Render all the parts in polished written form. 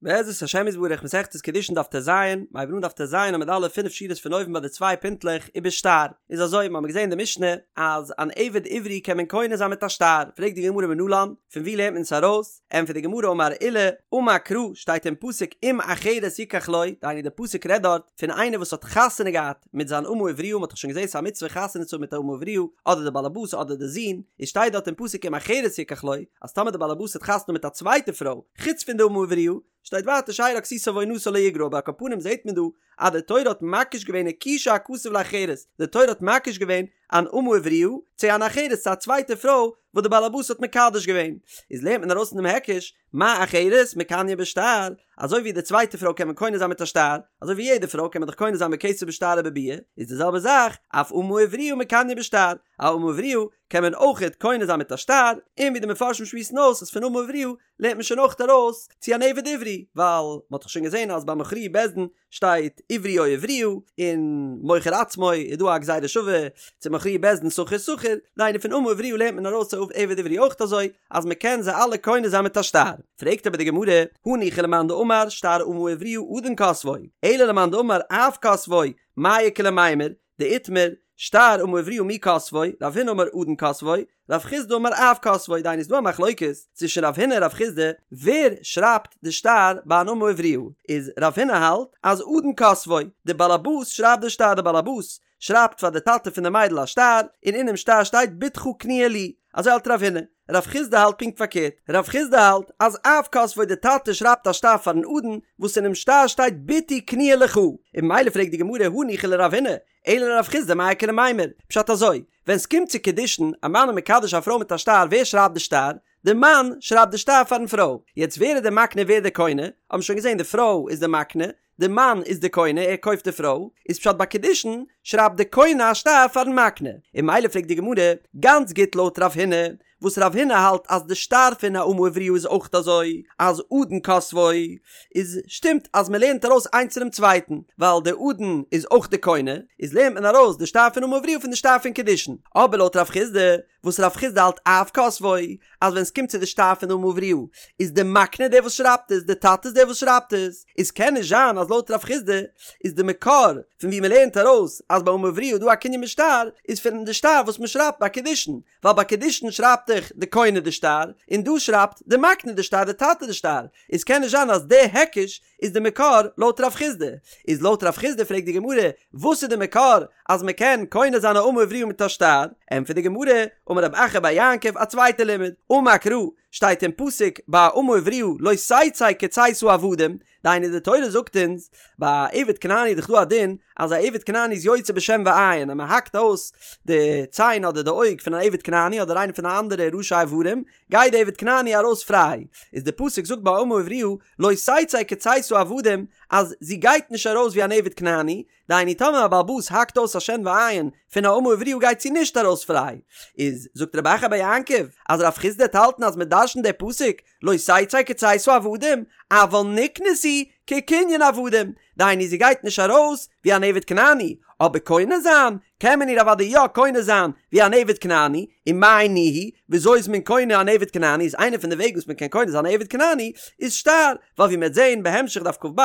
בעזרת השם יתברך מסכת קידושין דף טז, מ'הייבט אן דף טז עמוד א' פינף שורות פון אויבן ביי די צוויי פינטלעך ובשטר, איז אזוי מ'האמיר געזען אין די משנה אז אן עבד עברי קען מען קונה זיין מיט א שטר, פרעגט די גמרא מנלן, פון ווי לערנט מען עס ארויס, ענטפערט די גמרא אמר עולא, אמר קרא, שטייט אין פסוק אם אחרת יקח לו, דהיינו די פסוק רעדט דארט פון איינער וואס האט חתונה געהאט מיט זיין אמה עבריה, מ'האט דאך שוין געזען ס'איז א מצוה חתונה צו האבן מיט א אמה עבריה, אדער די באלעבאס אדער די זון, איז שטייט דארט אין פסוק אם אחרת יקח לו, אז טאמער די באלעבאס האט חתונה מיט א צווייטע פרוי, חוץ פון די אמה עבריה, שטייט ווייטער שארה כסותה ועונתה לא יגרע אבער על כל פנים זעט מען דא אז די תורה האט מקיש געווען הקישה הכתוב לאחרת, די תורה האט מקיש געווען אן אמה עבריה צו אן אחרת צו א צווייטע פרוי וואס די באלעבאס האט מקדש געווען, איז לערנט מען ארויס פון דעם היקש, מה אחרת מקניא בשטר, אזוי ווי די צווייטע פרוי קען מען קונה זיין מיט א שטר, אזוי ווי יעדע פרוי קען מען דאך קונה זיין בכסף בשטר ובביאה, איז די זעלבע זאך אף אמה עבריה מקניא בשטר, א אמה עבריה קען מען אויכעט קונה זיין מיט א שטר, און ווי די מפרשים שמועסן אויס אז פון אמה עבריה לערנט מען שוין אויכעט ארויס צו אן עבד עברי, ווייל מ'האט דאך שוין געזען אז ביי מכרוהו בית דין שטייט עברי או עבריה, און מוכר עצמו איז דא א גזירה שווה צו מכרוהו בית דין שכיר שכיר, דהיינו פון אמה עבריה לערנט מען ארויס צו עבד עברי אויכעט אזוי, אז מ'קען זיי אלע קונה זיין מיט א שטר. פרעגט אבער די גמרא, הניחא למאן דאמר שטר אמה עבריה אדון כותבו, אלא למאן דאמר אב כותבו, מאי איכא למימר, דאיתמר, שטר אמה עבריה מי כותבו, רב הונא אמר אדון כותבו, רב חסדא אמר אב כותבו, דהיינו איז דא א מחלוקת צווישן רב הונא און רב חסדא ווער שרייבט די שטר ביי אן אמה עבריה, איז רב הונא האלט אז אדון כותבו, די באלעבאס שרייבט די שטר, די באלעבאס שרייבט פאר די טאטע פון די מיידל א שטר, און אינעם שטר שטייט בתך קנויה לי, אזוי האלט רב הונא. רב חסדא האלט פונקט פארקערט, רב חסדא האלט אז אב כותבו די טאטע שרייבט א שטר פארן אדון וואס אינעם שטר שטייט בתי קנויה לך, און ממילא פרעגט די גמרא הניחא לרב הונא, אלא לרב חסדא מאי איכא למימר, פשט אזוי, ווען סקומט צו קידושין, א מאן איז מקדש א פרוי מיט א שטר, ווער שרייבט די שטר? די מאן שרייבט די שטר פארן פרוי, יעצט ווער איז די מקנה ווער די קונה, האבן מיר שוין געזען די פרוי איז די מקנה, די מאן איז די קונה, ער קויפט די פרוי, איז פשט ביי קידושין שרייבט די קונה א שטר פארן מקנה, און ממילא פרעגט די גמרא, גאנץ גוט לויט רב הונא, וואס רב הונא האלט אז די שטר פון א אמה עבריה איז אויך אזוי, אז אדון כותבו, איז שטימט אז מען לערנט ארויס איינס פונעם צווייטן, ווייל די אדון איז אויך די קונה, איז לערנט מען ארויס די שטר פון אמה עבריה פון די שטר פון קידושין, אבער לויט רב חסדא, וואס רב חסדא האלט אב כותבו, אז ווען ס'קומט צו די שטר פון אמה עבריה, איז די מקנה דער וואס שרייבט עס, די טאטע איז דער וואס שרייבט עס, איז קען נישט זיין אז לויט רב חסדא איז די מקור פון ווי מ'לערנט ארויס אז ביי אמה עבריה איז דא א קנין בשטר, איז פון די שטר וואס מ'שרייבט ביי קידושין, ווייל ביי קידושין שרייבט דאך די קונה די שטר, און דא שרייבט די מקנה די שטר, די טאטע די שטר, איז קען נישט זיין אז די היקש איז די מקור לויט רב חסדא, איז לויט רב חסדא פרעגט די גמרא, וואס איז די מקור אז מען קען קונה זיין א אמה עבריה מיט א שטר, ענטפערט די גמרא, אמר רב אחא בר יעקב א צווייטע לימוד, אמר קרא, שטייט אין פסוק ביי אמה עבריה לא תצא כצאת העבדים, דהיינו די תורה זאגט אונז, ביי א עבד כנעני איז דאך דא א דין אז א עבד כנעני איז יוצא בשן ועין אז מען האקט אויס די ציין אדער די אויג פון אן עבד כנעני אדער איינער פון די אנדערע ראשי איברים, גייט די עבד כנעני ארויס פריי, איז די פסוק זאגט ביי אמה עבריה לא תצא כצאת העבדים אז זי גייט נישט ארויס ווי אן עבד כנעני, דהיינו טאמער א בעל הבית האקט אויס א שן ועין פון א אמה עבריה גייט זי נישט ארויס פריי, איז זאגט רב אחא בר יעקב אז רב חסדא וועט האלטן אז מען דרשנט די פסוק לא תצא כצאת העבדים אבל נקנית היא כקנין עבדים, דהיינו זי גייט נישט ארויס ווי אן עבד כנעני, אבער קונה זיין קען מען איר אוודאי יא קונה זיין ווי אן עבד כנעני, ומאי ניהו, וויאזוי איז מען קונה אן עבד כנעני, איז איינע פון די וועגן וואס מען קען קונה זיין א עבד כנעני איז שטר, ווייל ווי מען וועט זען בהמשך דף כ"ב,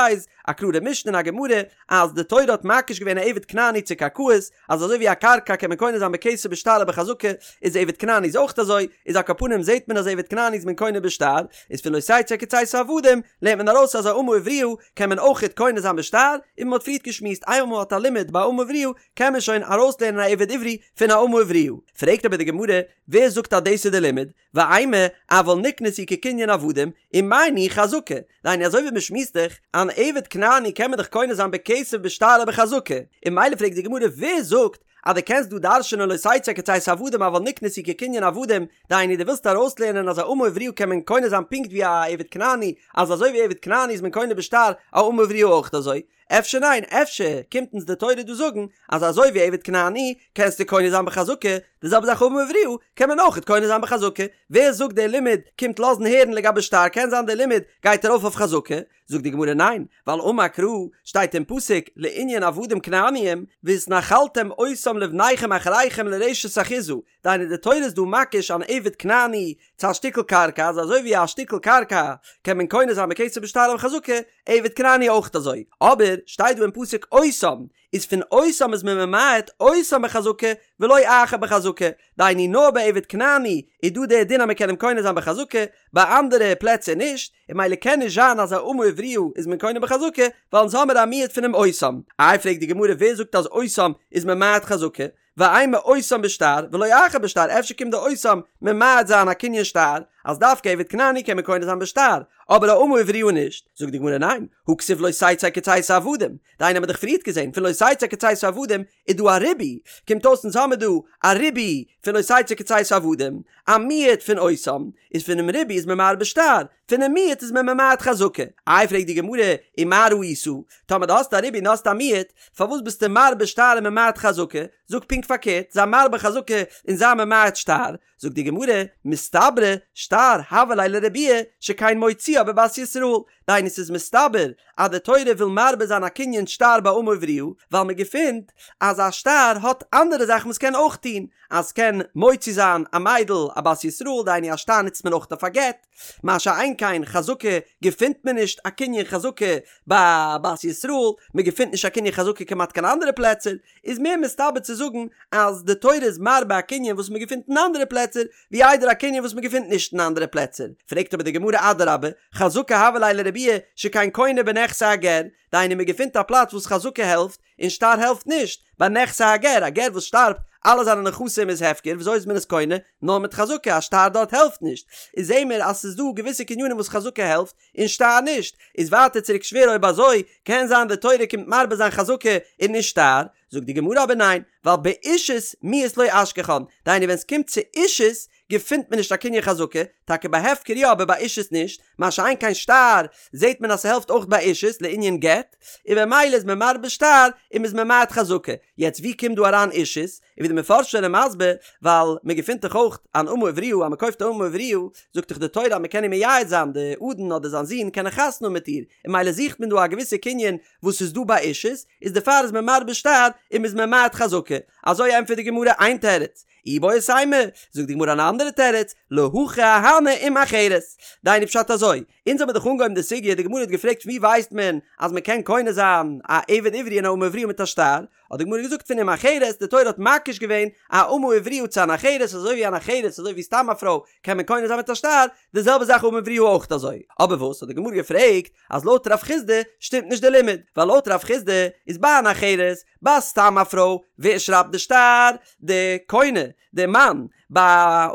א קלארע משנה אין א גמרא, אז די תורה האט מקיש געווען א עבד כנעני צו קרקעות, אז אזוי ווי א קרקע קען מען קונה זיין בכסף בשטר ובחזקה, איז עבד כנעני איז אויך אזוי, איז על כל פנים זעט מען אז עבד כנעני איז מען קונה בשטר, איז פון לא תצא כצאת העבדים לערנט מען ארויס אז א אמה עבריה קען מען אויכעט קונה זיין בשטר, און מען האט פריערט געשמועסט איינמאל מען האט א לימוד ביי אמה עבריה קען מען שוין ארויסלערנען א עבד עברי פון א אמה עבריה. פרעגט אבער די גמרא, ווער זאגט אז דאס איז די לימוד? ואימא, אבל נקנית היא כקנין עבדים, ומאי ניהו חזקה? דהיינו אזוי ווי מען שמועסט דאך, אן עבד כנעני קען מען דאך קונה זיין בכסף בשטר ובחזקה, און ממילא פרעגט די גמרא ווער זאגט אז דו קענסט דא דרש'נען לא תצא כצאת העבדים אבל נקנית היא כקנין עבדים, דהיינו דו ווילסט ארויסלערנען אז א אמה עבריה קען מען קונה זיין פונקט ווי א עבד כנעני, אז אזוי ווי עבד כנעני איז מען קונה בשטר, א אמה עבריה אויך אזוי? אפשר ניין, אפשר קומט אונז די תורה דא זאגן אז אזוי ווי עבד כנעני קענסטו קונה זיין בחזקה, די זעלבע זאך אמה עבריה קען מען אויכעט קונה זיין בחזקה, ווער זאגט דער לימוד קומט לאזן הערן לגבי שטר קען זיין דער לימוד גייט ארויף אויף חזקה, זאגט די גמרא ניין, ווייל אמר קרא שטייט אין פסוק לענין עבדים כנעניים והתנחלתם אותם לבניכם אחריכם לרשת אחוזה, דהיינו די תורה איז דא מקיש אן עבד כנעני צו א שטיקל קרקע אז אזוי ווי א שטיקל קרקע קען מען קונה זיין בכסף בשטר או בחזקה, עבד כנעני אויך אזוי, אבער שטייט דא אין פסוק אותם, איז פון אותם איז מען ממעט אותם בחזקה ולא אחר בחזקה, דהיינו נאר ביי עבד כנעני איז דא דער דין אז מען קען אים קונה זיין בחזקה, ביי אנדערע פלעצער נישט, און ממילא קען נישט זיין אז א אמה עבריה איז מען קונה בחזקה, ווייל אונז האמיר א מיעוט פונעם אותם. איי פרעגט די גמרא ווער זאגט אז אותם איז ממעט חזקה, ואימא אותם בשטר ולא אחר בשטר אפשר קומט די אותם ממעט זיין א קנין שטר אז דווקא עבד כנעני קען מען קונה זיין בשטר אבער א אמה עבריה נישט, זאגט די גמרא ניין, הא כתיב לא תצא כצאת העבדים, דהיינו האמיר דאך פריערט געזען פון לא תצא כצאת העבדים איז דא א ריבוי, קומט אויס אונז האמיר דא א ריבוי פון לא תצא כצאת העבדים, א מיעוט פון אותם, איז פונעם ריבוי איז מען מרבה שטר, פונעם מיעוט איז מען ממעט חזקה. איי פרעגט די גמרא, ומה ראית? טאמער דו האסט א ריבוי און האסט א מיעוט, פארוואס ביסטו מרבה שטר און ממעט חזקה? זאג פונקט פארקערט, זיי מרבה חזקה און זיי ממעט שטר. זאגט די גמרא, מסתברא שטר הוה ליה לרבויי שכן מוציאה בבת ישראל, דהיינו ס'איז מסתבר אז די תורה וויל מרבה זיין א קנין שטר ביי אמה עבריה, ווייל מען געפינט אז א שטר האט אנדערע זאכן וואס קען אויך טון, אז ס'קען מוציא זיין א מיידל א בת ישראל, דהיינו א שטר נוצט מען אויך אויף א גט, מה שאין כן חזקה געפינט מען נישט א קנין חזקה ביי בת ישראל, מען געפינט נישט א קנין חזקה כמעט קיין אנדערע פלעצער, איז מער מסתבר צו זאגן אז די תורה איז מרבה א קנין וואס מען געפינט אין אנדערע פלעצער, ווי איידער א קנין וואס מען געפינט נישט אין אנדערע פלעצער. פרעגט אבער די גמרא אדרבה, חזקה הוה ליה לרבויי שכן קונה בנכסי הגר, דהיינו מען געפינט א פלאץ וואס חזקה העלפט, און שטר העלפט נישט, ביי נכסי הגר, א גר וואס שטארבט, אלע זיינע נכסים איז הפקר, וויאזוי איז מען עס קונה? נאר מיט חזקה, א שטר דארט העלפט נישט. איז זעהן מיר אז ס'איז דא געוויסע קנינים וואס חזקה העלפט, און שטר נישט. איז ווייטער צוריק שווער אויב אזוי, קען זיין די תורה קומט מרבה זיין חזקה און נישט שטר? זאגט די גמרא אבער ניין, ווייל באישות מיהת לא אשכחן, דהיינו ווען ס'קומט צו אישות געפינט מען נישט א קנין חזקה, טאקע ביי הפקר יא אבער ביי אישות נישט, מה שאין כן שטר זעהט מען אז ס'העלפט אויך ביי אישות לענין גט, און במילא איז מען מרבה שטר און מ'איז ממעט חזקה, יעצט ווי קומט דא אריין אישות? און ווי די מפרשים זענען מסביר, ווייל מען געפינט דאך אויך אן אמה עבריה אז מען קויפט א אמה עבריה, זאגט דאך די תורה אז מען קען איר מייעד זיין, די אדון אדער זיין זון קענען חתונה האבן מיט איר, און ממילא זוכט מען דא א געוויסע קנין וואס איז דא ביי אישות, איז דערפאר איז מען מרבה שטר און מ'איז ממעט חזקה, אזוי ענטפערט די גמרא איין תירוץ, איבעית אימא, זאגט די גמרא אן אנדערע תירוץ, להכי אהני אם אחרת. דהיינו פשט אזוי, אונז האבן דאך אנגעהויבן די סוגיא, די גמרא האט געפרעגט פון ווי ווייסט מען אז מען קען קונה זיין א עבד עברי און א אמה עבריה מיט א שטר, האט די גמרא געזאגט פון אם אחרת, די תורה האט מקיש געווען א אמה עבריה צו אן אחרת, אזוי ווי אן אחרת, אזוי ווי סתם א פרוי קען מען קונה זיין מיט א שטר, די זעלבע זאך אמה עבריה אויך אזוי. אבער וואס האט די גמרא געפרעגט אז לויט רב חסדא שטימט נישט די לימוד, ווייל לויט רב חסדא איז ביי אן אחרת, ביי סתם א פרוי, ווער שרייבט די שטר? די קונה, די מאן, ביי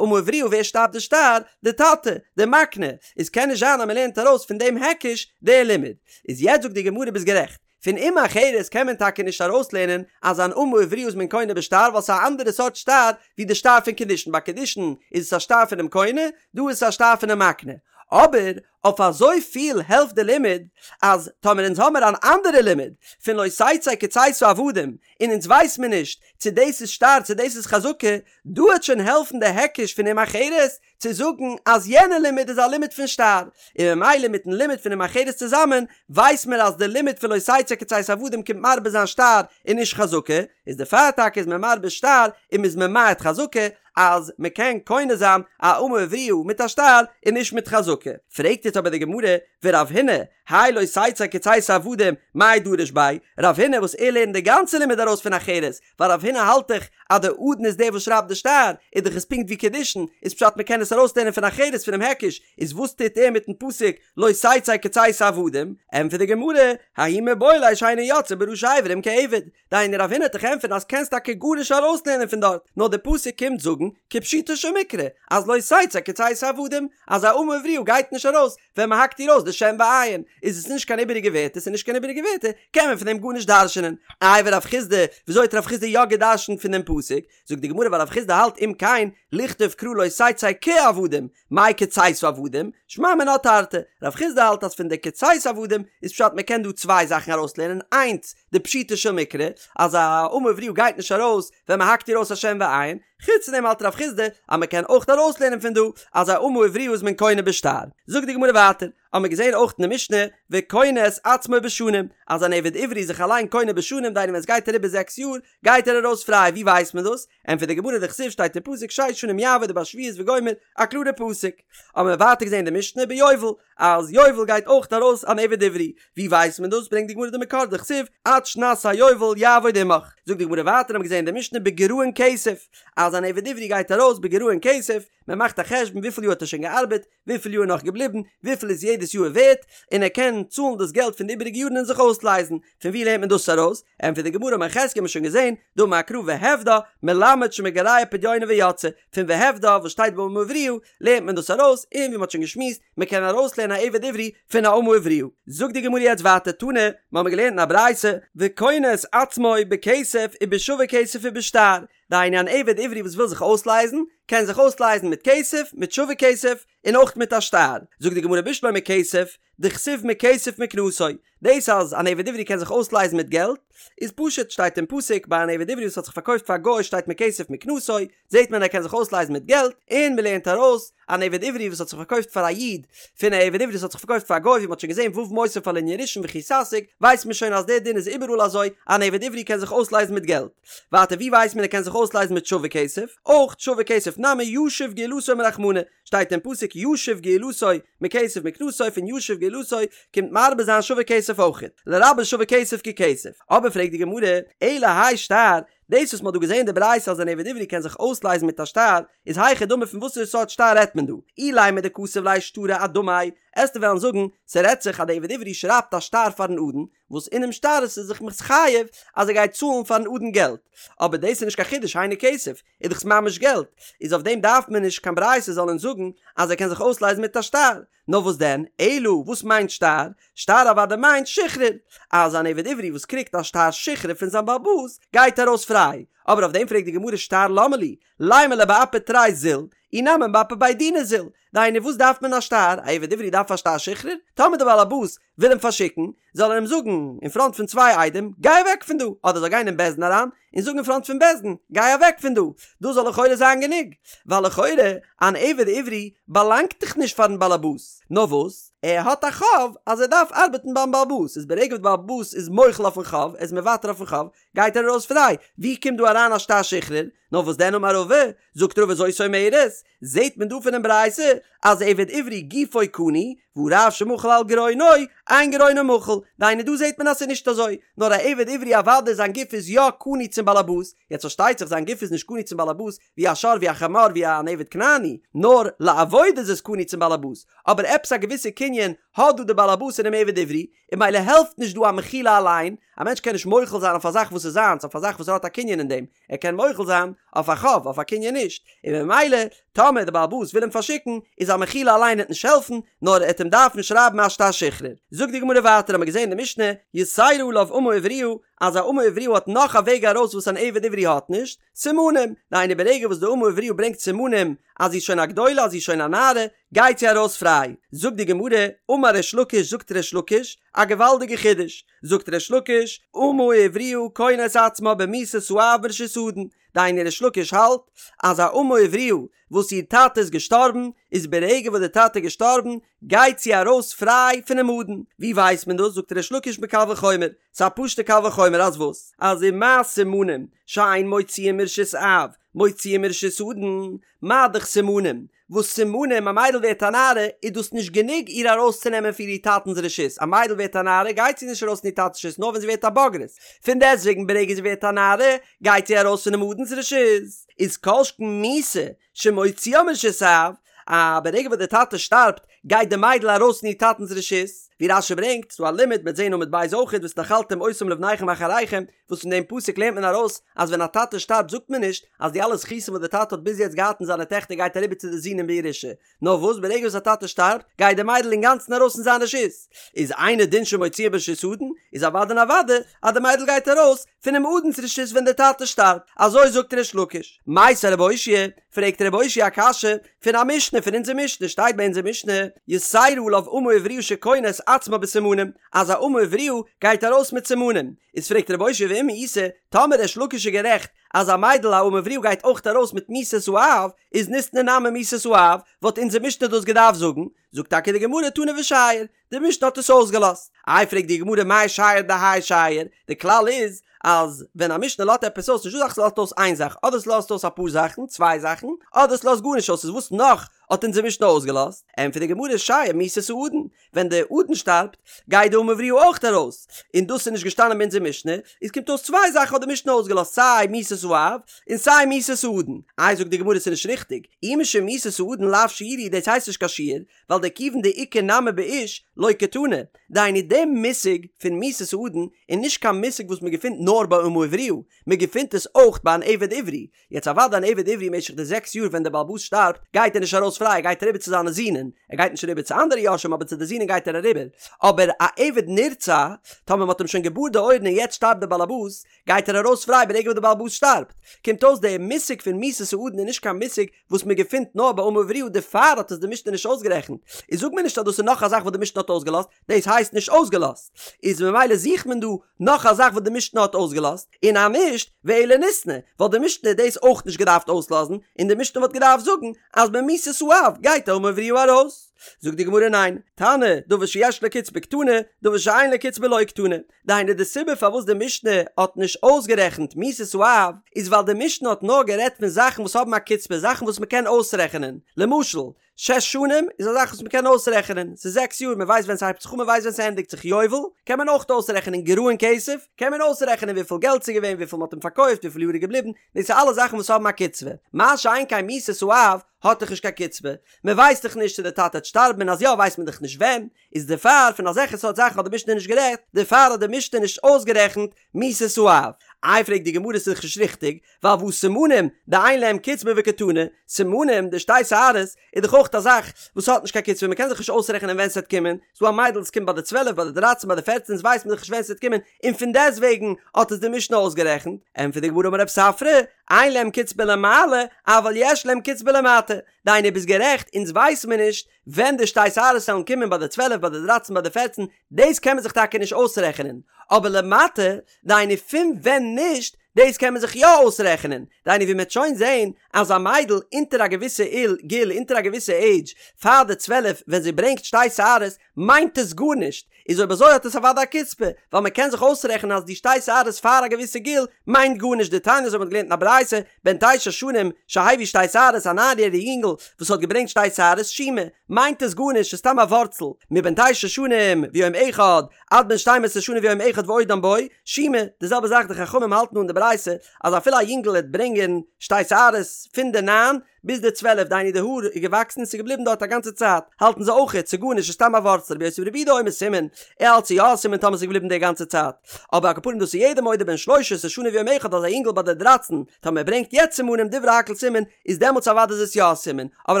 אמה עבריה ווער שרייבט די שטר? די טאטע, די מקנה, איז קען נישט זיין אז מען לערנט ארויס פון דעם היקש די לימוד. איז יעצט זאגט די גמרא ביסט גערעכט, פון אם אחרת קען מען טאקע נישט ארויסלערנען אז אן אמה עבריה איז מען קונה בשטר ווייל ס'איז א אנדערע סארט שטר ווי די שטר פון קידושין, ביי קידושין איז עס א שטר פונעם קונה, דא איז עס א שטר פונעם מקנה. אבער אויף אזוי פיל העלפט די לימוד אז טאמער אונז האמער אן אנדערע לימוד פון לא תצא כצאת העבדים און אונז ווייס מיר נישט צו דאס איז שטר צו דאס איז חזקה, דא העט שוין העלפן די היקש פון אם אחרת צו זאגן אז יענע לימוד איז א לימוד פון שטר, און ממילא מיטן לימוד פון אם אחרת צוזאמען ווייס מיר אז די לימוד פון לא תצא כצאת העבדים קומט מרבה זיין שטר און נישט חזקה, איז דערפאר טאקע איז מען מרבה שטר און מ'איז ממעט חזקה, אז מען קען קונה זיין א אמה עבריה מיט א שטר און נישט מיט חזקה. פרעגט יעצט אבער די גמרא, ורב הונא, האי לא תצא כצאת העבדים, מאי דריש ביה, רב הונא וואס ער לערנט די גאנצע לימוד ארויס פון אחרת, ווייל רב הונא האלט דאך אז די אדון איז דער וואס שרייבט די שטר, איז דאך עס פונקט ווי קידושין, איז פשט מען קען עס ארויסלערנען פון אחרת פונעם היקש, איז וואס טוט ער מיטן פסוק לא תצא כצאת העבדים? ענטפערט די גמרא, ההוא מיבעי ליה שאינה יוצאה בראשי אברים כעבד, דהיינו רב הונא העט דיך ענטפערן אז קענסט טאקע גארנישט ארויסלערנען פון דארט, נאר די פסוק קומט זאגן כפשוטו של מקרא אז לא תצא כצאת העבדים, אז א אמה עבריה גייט נישט ארויס ווען מען האקט איר אויס די שן ועין, איז עס נישט קיין איבעריגע ווערטער, ס'איז נישט קיין איבעריגע ווערטער, קען מען פון דעם גארנישט דרש'נען. איי ורב חסדא, וויאזוי האט רב חסדא יא געדרש'נט פון דעם פסוק? זאגט די גמרא ווייל רב חסדא האלט אם כן לכתוב קרא לא תצא כעבדים, מאי כצאת העבדים, שמע מינה תרתי, רב חסדא האלט אז פון די כצאת העבדים איז פשט מען קען דא צוויי זאכן ארויסלערנען, איינס, די פשוטו של מקרא, אז א אמה עבריה גייט נישט ארויס ווען מען האקט איר אויס א שן ועין, חוץ פון דעם האלט רב חיסדא אז מען קען אויך ארויסלערנען פון דא אז א אמה עבריה איז מען קונה בשטר. זאגט די גמרא ווייטער, האבן מיר געזען אויך אין די משנה, וקונה את עצמו בשנים, אז אן עבד עברי איז זיך אליין קונה בשנים, דהיינו ווען עס גייט אריבער זעקס יאר, גייט ער ארויס פריי, ווי ווייסט מען דאס? ענטפערט די גמרא דכתיב שטייט אין פסוק שש שנים יעבוד ובשביעית וגומר, א קלארע פסוק. האבן מיר ווייטער געזען אין די משנה ביובל, אז יובל גייט אויך ארויס אן עבד עברי, ווי ווייסט מען דאס? ברענגט די גמרא די מקור דכתיב עד שנת היובל יעבוד עמך. זאגט די גמרא ווייטער האבן מיר געזען אין די משנה בגרעון כסף, אז אן עבד עברי גייט ארויס בגרעון כסף, מען מאכט א חשבון וויפיל יאר האט ער שוין געארבעט, וויפיל יאר איז נאך געבליבן, וויפיל איז יעדעס יאר ווערט, און ער קען צאלן דאס געלט פון די איבעריגע יארן און זיך אויסלייזן. פון ווי לערנט מען דאס ארויס? ענטפערט די גמרא אמר חזקיה האט מען שוין געזען, דאמר קרא והפדה, מלמד שמגרע פדיונה ויוצאה, פון והפדה וואס שטייט ביי אמה עבריה, לערנט מען דאס ארויס, און ווי מען האט שוין געשמועסט, מען קען ארויסלערנען א עבד עברי פון א אמה עבריה. זאגט די גמרא יעצט ווייטער תנא, מיר האבן געלערנט אין א ברייתא, וקונה את עצמו בכסף ובשווה כסף ובשטר, דהיינו אן עבד עברי וואס וויל זיך אויסלייזן, קען זיך אויסלייזן מיט כסף, מיט שווה כסף, און אויך מיט א שטר. זאגט די גמרא בשלמא כסף, דכתיב מכסף מקנתו, דאס אז אן עבד עברי קען זיך אויסלייזן מיט געלט, איז פשוט, שטייט אין פסוק, ביי אן עבד עברי וואס האט זיך פארקויפט פאר א גוי שטייט מכסף מקנתו, זעט מען ער קען זיך אויסלייזן מיט געלט, און מען לערנט ארויס, אן עבד עברי וואס האט זיך פארקויפט פאר א איד, פון א עבד עברי וואס האט זיך פארקויפט פאר א גוי ווי מען האט שוין געזען ו' מוסיף על ענין ראשון וכי תשיג, ווייסט מען שוין אז דער דין איז איבעראל אזוי, אן עבד עברי קען זיך אויסלייזן מיט געלט. ווייטער ווי ווייסט מען ער קען זיך אויסלייזן מיט שווה כסף? אויך שווה כסף נמי ישיב גאולתו אמר רחמנא, שטייט אין פסוק ישיב גאולתו מכסף מקנתו פון ישיב גאולתו קומט מרבה זיין שווה כסף אויכעט, לרבות שווה כסף ככסף. אבער פרעגט די גמרא, אלא האי שטר, דאס וואס מ'האט דא געזען אין די ברייתא אז אן עבד עברי קען זיך אויסלייזן מיט א שטר, איז היכי דמי פון וואסערע סארט שטר רעדט מען דא? אילימא דכתב ליה שטרא אדמיה, עסטו וועלן זאגן, ס'רעדט זיך אז די עבד עברי שרייבט א שטר פארן אדון, וואס אינעם שטר איז ער זיך מתחייב אז ער גייט צאלן פארן אדון געלט, אבער דאס איז נישט קיין חידוש היינו כסף, איז דאך ממש געלט, איז אויף דעם דארף מען נישט קיין ברייתא זאל אונז זאגן אז ער קען זיך אויסלייזן מיט א שטר, נאר וואס דען, אלא וואס מיינט שטר? שטר אוודאי מיינט שחרור, אז אן עבד עברי וואס קריגט א שטר שחרור פון זיין בעל הבית גייט ארויס פריי, אבער אויף דעם פרעגט די גמרא שטר למה לי, לימא ליה באפי תרי זיל, אי נמי באפי בי דינא זיל, דהיינו וואס דארף מען א שטר, א עבד עברי דארף א שטר שחרור? טאמער דער בעל הבית וויל אים פארשיקן, זאל ער אים זאגן אין פראנט פון צוויי עדים, גיי אוועק פון דא, אדער זאל גיין אין בית דין אריין און זאגן אין פראנט פון בית דין, גיי אוועק פון דא, דאס זאל לכאורה זיין גענוג, ווייל לכאורה אן עבד עברי באלאנגט דאך נישט פארן בעל הבית, נאר וואס, ער האט א חוב אז ער דארף ארבעטן ביים בעל הבית, איז ברגע וואס דער בעל הבית איז מוחל אויפן חוב, ער איז מוותר אויפן חוב, גייט ער ארויס פריי, ווי קומט דא אריין א שטר שחרור? נאר וואס דען אמר רבא, זאגט רבא זאת אומרת, זעהט מען דא פונעם ברייתא אז עבד עברי גופו קנוי, והא רב שמחל על גרונו, אין גרונו מחול, דהיינו דא זעהט מען אז ס'איז נישט אזוי, נאר א עבד עברי אוודאי זיין גוף איז יא קנוי צום באלעבאס, יעצט פארשטייט זיך זיין גוף איז נישט קנוי צום באלעבאס ווי א שור ווי א חמור ווי אן עבד כנעני, נאר לעבודה איז עס קנוי צום באלעבאס, אבער עפעס א געוויסע קנין האט דא די באלעבאס אינעם עבד עברי, און ממילא העלפט נישט דא א מחילה אליין, א מענטש קען נישט מוחל זיין אויף א זאך וואס איז זיינס, אויף א זאך וואס ער האט א קנין אין דעם, ער קען מוחל זיין אויף א חוב, אויף א קנין נישט, און ממילא טאמער די בעל הבית וויל אים פארשיקן, איז א מחילה אליין וועט נישט העלפן, נאר ער וועט אים דארפן שרייבן א שטר שחרור. זאגט די גמרא ווייטער האמיר געזען אין די משנה, יתירה עליו אמה עבריה, אז א אמה עבריה האט נאך א וועג ארויס וואס אן עבד עברי האט נישט, סימנים, דהיינו ברגע וואס די אמה עבריה ברענגט סימנים אז זי איז שוין א גדולה אז זי איז שוין א נערה, גייט זי ארויס פריי. זאגט די גמרא, אמר ריש לקיש זאגט ריש לקיש, א געוואלדיגע חידוש, זאגט ריש לקיש, אמה עבריה קונה את עצמה במיתת האב מרשות האדון, דהיינו ריש לקיש האלט אז א אמה עבריה וואס איר טאטע איז געשטארבן, איז ברגע וואס די טאטע איז געשטארבן גייט זי ארויס פריי פונעם אדון, ווי ווייסט מען דאס? זאגט ריש לקיש מקל וחומר, ס'איז א פשוטע קל וחומר אז וואס? אז ומה סימנים שאין מוציאין מרשות אב מוציאין מרשות אדון, מה דאך סימנים וואס סימנים א מיידל ווערט א נערה איז דאס נישט גענוג איר ארויסצונעמען פון איר טאטנ'ס רשות, א מיידל ווערט א נערה גייט זי נישט ארויס פון איר טאטנ'ס רשות נאר ווען זי ווערט א בוגרת, פון דעסטוועגן ברגע זי ווערט א נערה גייט זי ארויס פונעם אדון'ס רשות, איז כל שכן מיתה שמוציאה מרשות אב, א ברגע וואס דער טאטע שטארבט גייט די מיידל ארויס פון איר טאטנ'ס רשות, ווי רש"י ברענגט, ס'דא א לימוד מ'עט זעהן עמוד ב' אויכעט והתנחלתם אותם לבניכם אחריכם, וואס פון דעם פסוק לערנט מען ארויס אז ווען א טאטע שטארבט זאגט מען נישט אז די אלע זכותים וואס דער טאטע האט ביז יעצט געהאט אין זיינע טעכטער גייט אריבער צו די זין אין בירושה, נאר וואס ברגע וואס א טאטע שטארבט גייט די מיידל אינגאנצן ארויס פון זיין רשות, איז אינו דין שמוציאה מרשות האדון, איז אוודאי און אוודאי אז די מיידל גייט ארויס פונעם אדון'ס רשות ווען דער טאטע שטארבט, אזוי זאגט ריש לקיש. מיתיבי רב אושעיא, פרעגט רב אושעיא א קשיא פון א משנה פון אונזער משנה, שטייט ביי אונזער משנה. יתירה עליו אמה עבריה שקונה את עצמה בסימנים, אז א אמה עבריה גייט ארויס מיט סימנים, איז פרעגט רב אושעיא ואם איתא, טאמער ריש לקיש איז גערעכט אז א מיידל א אמה עבריה גייט אויך ארויס מיט מיתת האב, איז ניתני נמי מיתת האב, וואלט אונזער משנה דאס געדארפט זאגן, זאגט טאקע די גמרא תנא ושייר, די משנה האט עס אויסגעלאזט. איי פרעגט די גמרא מאי שייר דהאי שייר, די כלל איז אז ווען א משנה לאזט עפעס אויס נישטא אזא זאך ס'לאזט אויס איין זאך, אדער ס'לאזט אויס אפאר זאכן, צוויי זאכן, אדער ס'לאזט גארנישט אויס, איז וואס נאך האט אונזער משנה אויסגעלאזט? ענטפערט די גמרא שייר מיתת האדון, ווען די אדון שטארבט גייט די אמה עבריה אויך ארויס, און דאס איז נישט געשטאנען ביי אונזער משנה, איז קומט אויס צוויי זאכן האט די משנה אויסגעלאזט סיי מיתת האב און סיי מיתת האדון, איי זאגט די גמרא ס'איז נישט ריכטיג, אי משום מיתת האדון לאו שיורא הוא דאס הייסט נישט קיין שיור, ווייל דכיון דאיכא נמי באיש לא קתני, דהיינו די מושג פון מיתת האדון איז נישט קיין מושג וואס מען געפינט נאר ביי אמה עבריה, מען געפינט עס אויך ביי אן עבד עברי, יעצט אוודאי אן עבד עברי משך די זעקס יאר ווען דער בעל הבית שטארבט גייט ער נישט ארויס פריי ער גייט אריבער צו זיינע זינען, ער גייט נישט אריבער צו אנדערע יורשים אבער צו די זינען גייט ער אריבער, אבער א עבד נרצע טאמער מען האט אים שוין געבארט די אויערן און יעצט שטארבט דער בעל הבית גייט ער ארויס פריי ברגע וואס דער בעל הבית שטארבט, קומט אויס דער מושג פון מיתת האדון איז נישט קיין מושג וואס מען געפינט נאר ביי אמה עבריה דערפאר האט עס די משנה נישט אויסגערעכנט, איז זאג מיר נישט אז דאס איז נאך א זאך וואס די משנה האט אויסגעלאזט, דאס הייסט נישט אויסגעלאזט, איז ממילא זוכט מען דא נאך א זאך וואס די משנה האט אויסגעלאזט, און אז נישט, ואלא ניתני, וואלט די משנה דאס אויך נישט געדארפט אויסלאזן, און די משנה וואלט געדארפט זאגן אז במיתת האב גייט די אמה עבריה ארויס. זאגט די גמרא ניין, תנא, דבר שיש לו קצבה קתני, דבר שאין לו קצבה לא קתני. דהיינו די סיבה פארוואס די משנה האט נישט אויסגערעכנט מיתת האב איז ווייל די משנה האט נאר גערעדט פון זאכן וואס האבן א קצבה זאכן וואס מ'קען אויסרעכענען למשל שש שנים איז א זאך וואס מ'קען אויסרעכענען ס'איז זעקס יאר מ'ווייסט ווען ס'הייבט זיך אן מ'ווייסט ווען ס'ענדיגט זיך יובל קען מען אויך אויסרעכענען גרעון כסף קען מען אויסרעכענען וויפיל געלט ס'איז געווען וויפיל מ'האט אים פארקויפט וויפיל יאר איז געבליבן דאס איז אלע זאכן וואס האבן א קצבה מה שאין כן מיתת האב האט דאך נישט קיין קצבה מ'ווייסט דאך נישט צו די טאטע וועט שטארבן און אז יא ווייסט מען דאך נישט ווען איז דערפאר פון אזעלכע סארט זאכן האט די משנה נישט גערעדט, דערפאר האט די משנה נישט אויסגערעכנט מיתת האב. איי פרעגט די גמרא ס'איז דאך נישט ריכטיג, ווייל והא סימנים דאין להם קצבה וקתני, סימנים די שתי שערות איז דאך אויך א זאך וואס האט נישט קיין קצבה מ'קען זיך נישט אויסרעכענען ווען ס'וועט קומען, ס'דא א מיידל עס קומט ביי די צוועלף ביי די דרייצן ביי די פערצן איז ווייסט מען דאך נישט ווען ס'וועט קומען און פון דעסטוועגן האט עס די משנה אויסגערעכנט, ענטפערט די גמרא אמר רב ספרא, אין להם קצבה למעלה אבל יש להם קצבה למטה, דהיינו ביסט גערעכט אונז ווייס מיר נישט ווען די שתי שערות וועלן קומען ביי די צוועלף ביי די דרייצן ביי די פערצן, דאס קען מען זיך טאקע נישט אויסרעכענען, אבער למטה, דהיינו פון ווען נישט, דאס קען מען זיך יא אויסרעכענען, דהיינו ווי מ'עט שוין זעהן אז א מיידל אונטער א געוויסע איל גיל אונטער א געוויסע עידזש פאר די צוועלף ווען זי ברענגט שתי שערות מיינט עס גארנישט, איז אויב אזוי האט עס אוודאי א קצבה, ווייל מען קען זיך אויסרעכענען אז די שתי שערות פאר א געוויסע גיל מיינט גארנישט דתניא אזוי ווי מ'האט געלערנט אין א ברייתא, בן תשע שנים שהביא שתי שערות א ניין יעריג יונגל וואס האט געברענגט שתי שערות שומא, מיינט עס גארנישט ס'איז סתם א ווארצל, מבן תשע שנים ויום אחד עד בן שתים עשרה שנה ויום אחד ועודם בו, שומא, די זעלבע זאך די חכמים האלטן אן די ברייתא אז אפילו א יונגל העט ברענגען שתי שערות פון די ניין ביז די צוועלף דהיינו די האר איז געוואקסן און ס'איז געבליבן דארט א גאנצע צייט, האלטן זיי אויכעט ס'איז גארנישט ס'איז סתם א ווארצל רבי יוסי ברבי יהודה אומר סימן, ער האלט ס'איז יא א סימן טאמער ס'איז געבליבן די גאנצע צייט, אבער על כל פנים דאס איז יעדער מודה בן שלש עשרה שנה ויום אחד אז א יונגל ביי די דרייצן טאמער ער ברענגט יעצט סימנים דברי הכל סימן איז דעמאלטס אוודאי איז עס יא א סימן, אבער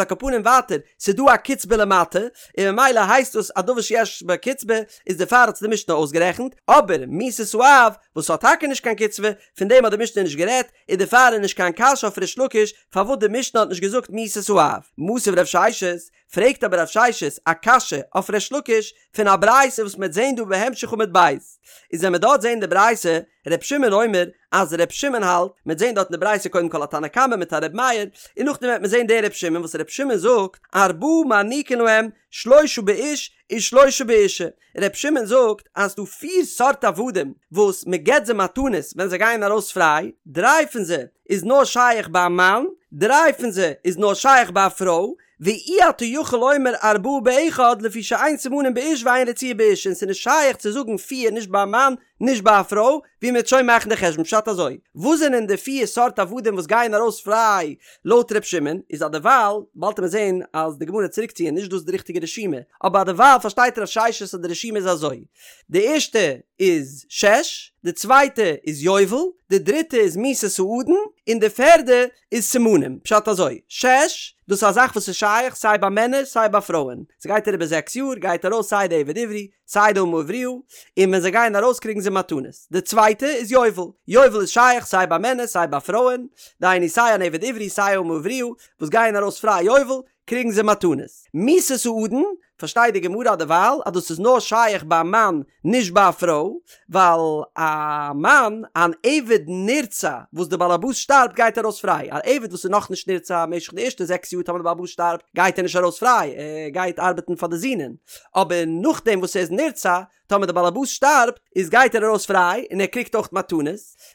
על כל פנים ווייטער ס'איז דא א קצבה למטה און ממילא הייסט דאס א דבר שיש בו קצבה איז דערפאר האט עס די משנה אויסגערעכנט, אבער מיתת האב וואס האט טאקע נישט קיין קצבה פון דעם האט די משנה נישט גערעדט, און דערפאר איז נישט קיין קשיא אויף ריש לקיש פארוואס די משנה האט נישט געזאגט מיתת האב. מתיב רב ששת, פרעגט אבער רב ששת א קשיא אויף ריש לקיש פון א ברייתא וואס מ'וועט זעהן דא בהמשך עמוד ב'. איז ווען מ'וועט דארט זעהן די ברייתא, ר' שמעון אומר, אז ר' שמעון האלט, מ'וועט זעהן דארט אין די ברייתא קודם כל א תנא קמא מיט א ר' מאיר, און נאכדעם וועט מען זעהן דער ר' שמעון וואס ר' שמעון זאגט, ארבעה מעניקין להם, שלושה באיש ושלושה באישה. ר' שמעון זאגט אז ס'דא פיר סארט עבדים וואס מען געבט זיי מתנות ווען זיי גייען ארויס פריי, דריי פון זיי איז נאר שייך ביי א מאן, דריי פון זיי איז נאר שייך ביי א פרוי, ואי אתה יכול לומר ארבעה באחד לפי שאין סימנים באיש ואין רציעה באישה און ס'איז נישט שייך צו זאגן פיר נישט ביי א מאן נישט ביי א פרוי, ווי מ'וועט שוין מאכן די חשבון פשט אזוי, וואס זענען די פיר סארט עבדים וואס גייען ארויס פריי לויט ר' שמעון, איז אדערווייל, באלד וועט מען זען אז די גמרא וועט צוריקציען נישט דאס איז די ריכטיגע רשימה, אבער אדערווייל פארשטייט רב ששת אז די רשימה איז אזוי, די ערשטע איז שש, די צווייטע איז יובל, די דריטע איז מיתת האדון, און די פערדע איז סימנים, פשט אזוי, שש, דאס איז א זאך וואס איז שייך סיי ביי מענער סיי ביי פרויען, ס'גייט אריבער זעקס יאר גייט ארויס סיי די עבד עברי, סיי די אמה עבריה, און ווען זיי גייען ארויס קריגן זיי מתנות. די צווייטע איז יובל. יובל איז שייך סיי ביי מענער סיי ביי פרויען, דהיינו סיי אן עבד עברי סיי אמה עבריה וואס גייען ארויס פריי יובל, קריגן זיי מתנות. מיתת האדון, פארשטייט די גמרא דערווייל אז דאס איז נאר שייך ביי א מאן נישט ביי א פרוי, ווייל א מאן, אן עבד נרצע וואס די באלעבאס שטארבט גייט ארויס פריי, א עבד וואס איז נאכנישט נרצע משך די ערשטע זעקס יאר טאמער די באלעבאס שטארבט גייט ער נישט ארויס פריי, ער גייט ארבעטן פאר די זינען, אבער נאכדעם וואס ער איז נרצע, טאמער די באלעבאס שטארבט איז גייט ער ארויס פריי און ער קריגט אויך מתנות,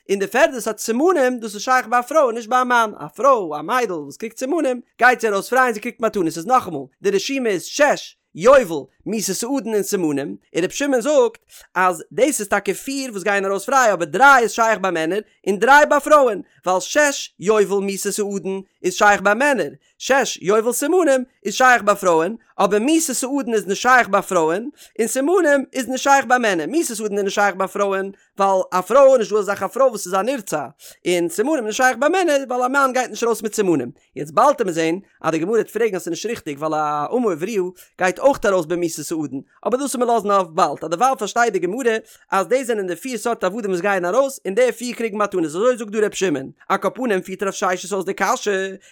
און די פערדע סארט סימנים דאס איז שייך ביי א פרוי און נישט ביי א מאן, א פרוי א מיידל וואס קריגט סימנים גייט זי ארויס פריי און זי קריגט מתנות, איז נאכאמאל די רשימה איז שש, יובל, מיתת האדון און סימנים, און רבי שמעון זאגט אז דאס איז טאקע פיר וואס גייען ארויס פריי אבער דריי איז שייך ביי מענער און דריי ביי פרויען, ווייל שש, יובל, מיתת האדון איז שייך ביי מענער, שש, יובל סימנים איז שייך ביי פרויען, אבער מיתת האדון איז נישט שייך ביי פרויען, און סימנים איז נישט שייך ביי מענער, מיתת האדון איז נישט שייך ביי פרויען, ווייל א פרוי איז נישט דא אזא זאך א פרוי וואס איז א נרצע, און סימנים איז נישט שייך ביי מענער ווייל א מאן גייט נישט ארויס מיט סימנים. יעצט באלד וועט מען זען אז די גמרא וועט פרעגן אז ס'איז נישט ריכטיג ווייל א אמה עבריה גייט אויך ארויס במיתת האדון, אבער דאס וועט מען לאזן אויף באלד, אז דערווייל פארשטייט די גמרא אז דאס זענען די פיר סארט עבדים וואס גייען ארויס, און די פיר קריגן מתנות, אזוי זאגט דא ר' שמעון. על כל פנים פירט רב ששת אויס די קשיא,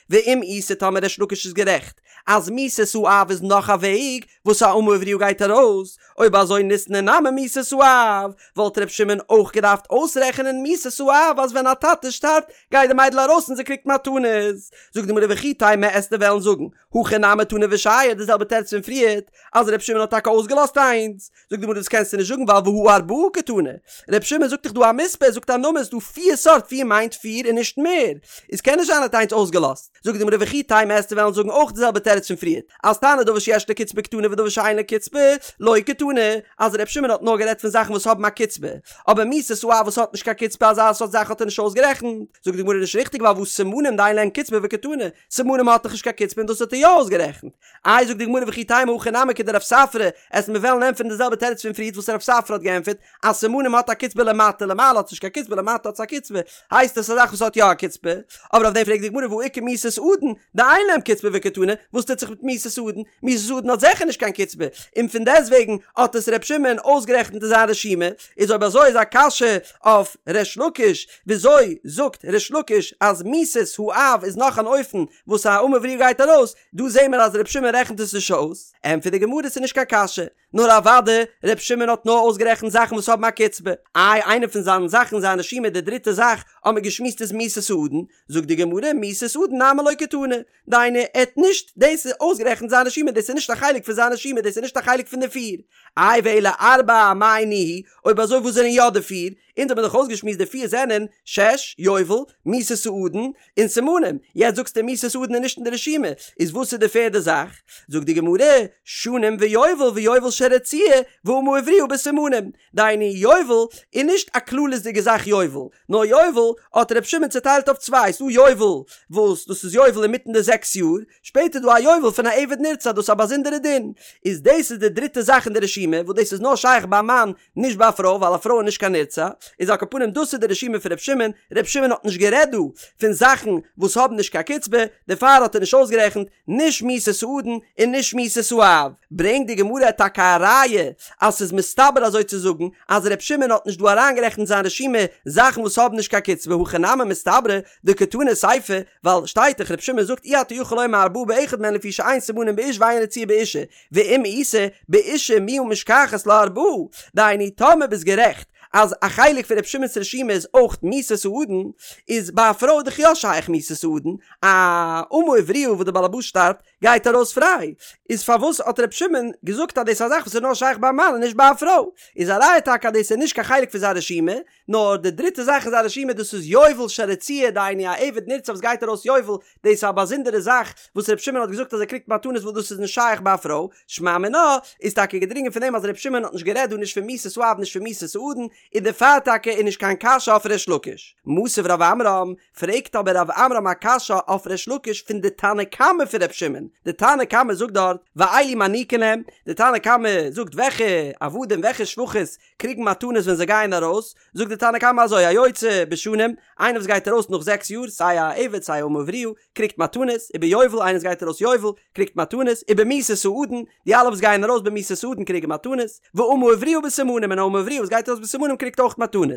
ואם איתא טאמער ריש לקיש איז גערעכט אז מיתת האב איז נאך א וועג וואס א אמה עבריה גייט ארויס, אויב אזוי ניתני נמי מיתת האב, וואלט ר' שמעון אויך געדארפט אויסרעכענען מיתת האב אז ווען א טאטע שטארבט גייט די מיידל ארויס און זי קריגט מתנות. זאגט די גמרא וכי תימא עסטו וועלן זאגן הכא נמי תנא ושייר די זעלבע תירוץ פון פריערט אז ר' שמעון האט טאקע אויסגעלאזט איינס, זאגט די גמרא דאס קענסטו נישט זאגן ווייל והא ארבעה קתני, ר' שמעון זאגט דאך דא א מספר, ער זאגט א נומער, ס'דא פיר סארט, פיר מיינט פיר און נישט מער, איז קען נישט זיין ער האט איינס אויסגעלאזט, זאגט די גמרא וכי תימא עסטו וועלן זאגן אויך די זעלבע תירוץ פון פריערט, אז תנא דבר שיש לו קצבה קתני ודבר שאין לו קצבה לא קתני, אז ר' שמעון האט נאר גערעדט פון זאכן וואס האבן א קצבה, אבער מיתת האב וואס האט נישט קיין קצבה אזא סארט זאך האט ער נישט אויסגערעכנט, זאגט די גמרא נישט ריכטיג ווייל והא סימנים דאין להן קצבה וקתני, סימנים האט דאך נישט קיין קצבה און דאס האט ער יא אויסגערעכנט. איי זאגט די גמרא וכי תימא הכא נמי כדרב ספרא, עסט מיר וועלן ענטפערן די זעלבע תירוץ פון פריערט וואס רב ספרא האט געענטפערט אז סימנים האט א קצבה למטה למעלה האט עס נישט קיין קצבה למטה האט עס א קצבה הייסט עס א זאך וואס האט יא א קצבה, אבער אויף דעם פרעגט די גמרא והא איכא מיתת אדון דאין להם קצבה וקתני, וואס טוט זיך מיט מיתת אדון? מיתת אדון האט זיכער נישט קיין קצבה, און פון דעסטוועגן האט עס ר' שמעון אויסגערעכנט אין זיין רשימה, איז אויב אזוי איז א קשיא אויף ריש לקיש, וויאזוי זאגט ריש לקיש אז מיתת האב איז נאך אן אופן וואס א אמה עבריה גייט ארויס, דא זעהן מיר אז ר' שמעון רעכנט עס נישט אויס, ענטפערט די גמרא ס'איז נישט קיין קשיא, נאר אוודאי ר' שמעון האט נאר אויסגערעכנט זאכן וואס האבן א קצבה, איי איינע פון זיינע זאכן אין זיין רשימה די דריטע זאך האט מען געשמועסט איז מיתת האדון, זאגט די גמרא מיתת אדון נמי לא קתני, דהיינו ער האט נישט דאס אויסגערעכנט אין זיין רשימה דאס איז נישט א חלק פון זיין רשימה דאס איז נישט א חלק פון די פיר, איי ואלא ארבעה מאי ניהו, אויב אזוי וואס זענען יא די פיר, אונז האבן דאך אויסגעשמועסט די פיר זענען, שש, יובל, מיתת האדון, און סימנים, יעצט זאגסטו מיתת האדון איז נישט אין די רשימה, איז וואס איז די פערדע זאך? זאגט די גמרא, שנים ויובל ויובל של רצועה, ואמה עבריה בסימנים, דהיינו יובל איז נישט א כללית'דיגע זאך יובל, נאר יובל האט ר' שמעון צוטיילט אויף צוויי, ס'דא יובל וואס דאס איז יובל אינמיטן די זעקס יאר, שפעטער דא א יובל פון א עבד נרצע דאס איז א באזונדערע דין, איז דאס איז די דריטע זאך אין די רשימה וואס דאס איז נאר שייך ביי א מאן נישט ביי א פרוי ווייל א פרוי איז נישט קיין נרצע, איז על כל פנים דאס איז די רשימה פון ר' שמעון, ר' שמעון האט נישט גערעדט דא פון זאכן וואס האבן נישט קיין קצבה, דערפאר האט ער נישט אויסגערעכנט נישט מיתת האדון און נישט מיתת האב. ברענגט די גמרא טאקע א ראיה אז ס'איז מסתבר אזוי צו זאגן אז ר' שמעון האט נישט דא אריינגערעכנט אין זיין רשימה זאכן וואס האבן נישט קיין קצבה הכי נמי מסתברא דקתני סיפא ווייל שטייט דאך ר' שמעון זאגט אי אתה יכול לומר ארבעה באחד מהן לפי שאין סימנים באיש ואין רצועה באשה ואם איתא באשה מיהא משכחת לה ארבעה, דהיינו טאמער ביסט גערעכט אז א חלק פון ר' שמעון'ס רשימה איז אויך מיתת האדון, איז ביי א פרוי דאך יא שייך מיתת האדון, א אמה עבריה וואס די בעל הבית שטארבט גייט ארויס פריי, איז פארוואס האט ר' שמעון געזאגט אז דאס איז א זאך וואס איז נאר שייך ביי א מאן און נישט ביי א פרוי? איז א ראיה טאקע אז דאס איז נישט קיין חלק פון זיין רשימה, נאר די דריטע זאך אין זיין רשימה דאס איז יובל של רצועה דהיינו א עבד נרצע וואס גייט ארויס יובל, דאס איז א באזונדערע זאך וואס ר' שמעון האט געזאגט אז ער קריגט מתנות וואס דאס איז נישט שייך ביי א פרוי, שמע מינה איז טאקע געדרינגען פון דעם אז ר' שמעון האט נישט גערעדט דא נישט פון מיתת האב נישט פון מיתת האדון, און דערפאר טאקע איז נישט קיין קשיא אויף ריש לקיש. מתיב רב עמרם, פרעגט אבער רב עמרם א קשיא אויף ריש לקיש פון די תנא קמא פון ר' שמעון, די תנא קמא זאגט דארט ואלו מעניקין להם, די תנא קמא זאגט וועלכע עבדים וועלכע שפחות קריגן מתנות ווען זיי גייען ארויס, זאגט די תנא קמא אזוי, היוצא בשנים, איינער וואס גייט ארויס נאך זעקס יאר, סיי א עבד סיי א אמה עבריה, קריגט מתנות, וביובל, איינער וואס גייט ארויס יובל, קריגט מתנות, ובמיתת האדון, די אלע וואס גייען ארויס במיתת האדון קריגן מתנות, ואמה עבריה בסימנים, און א אמה עבריה וואס גייט ארויס בסימנים. סימנים קריגט אויך מתנות.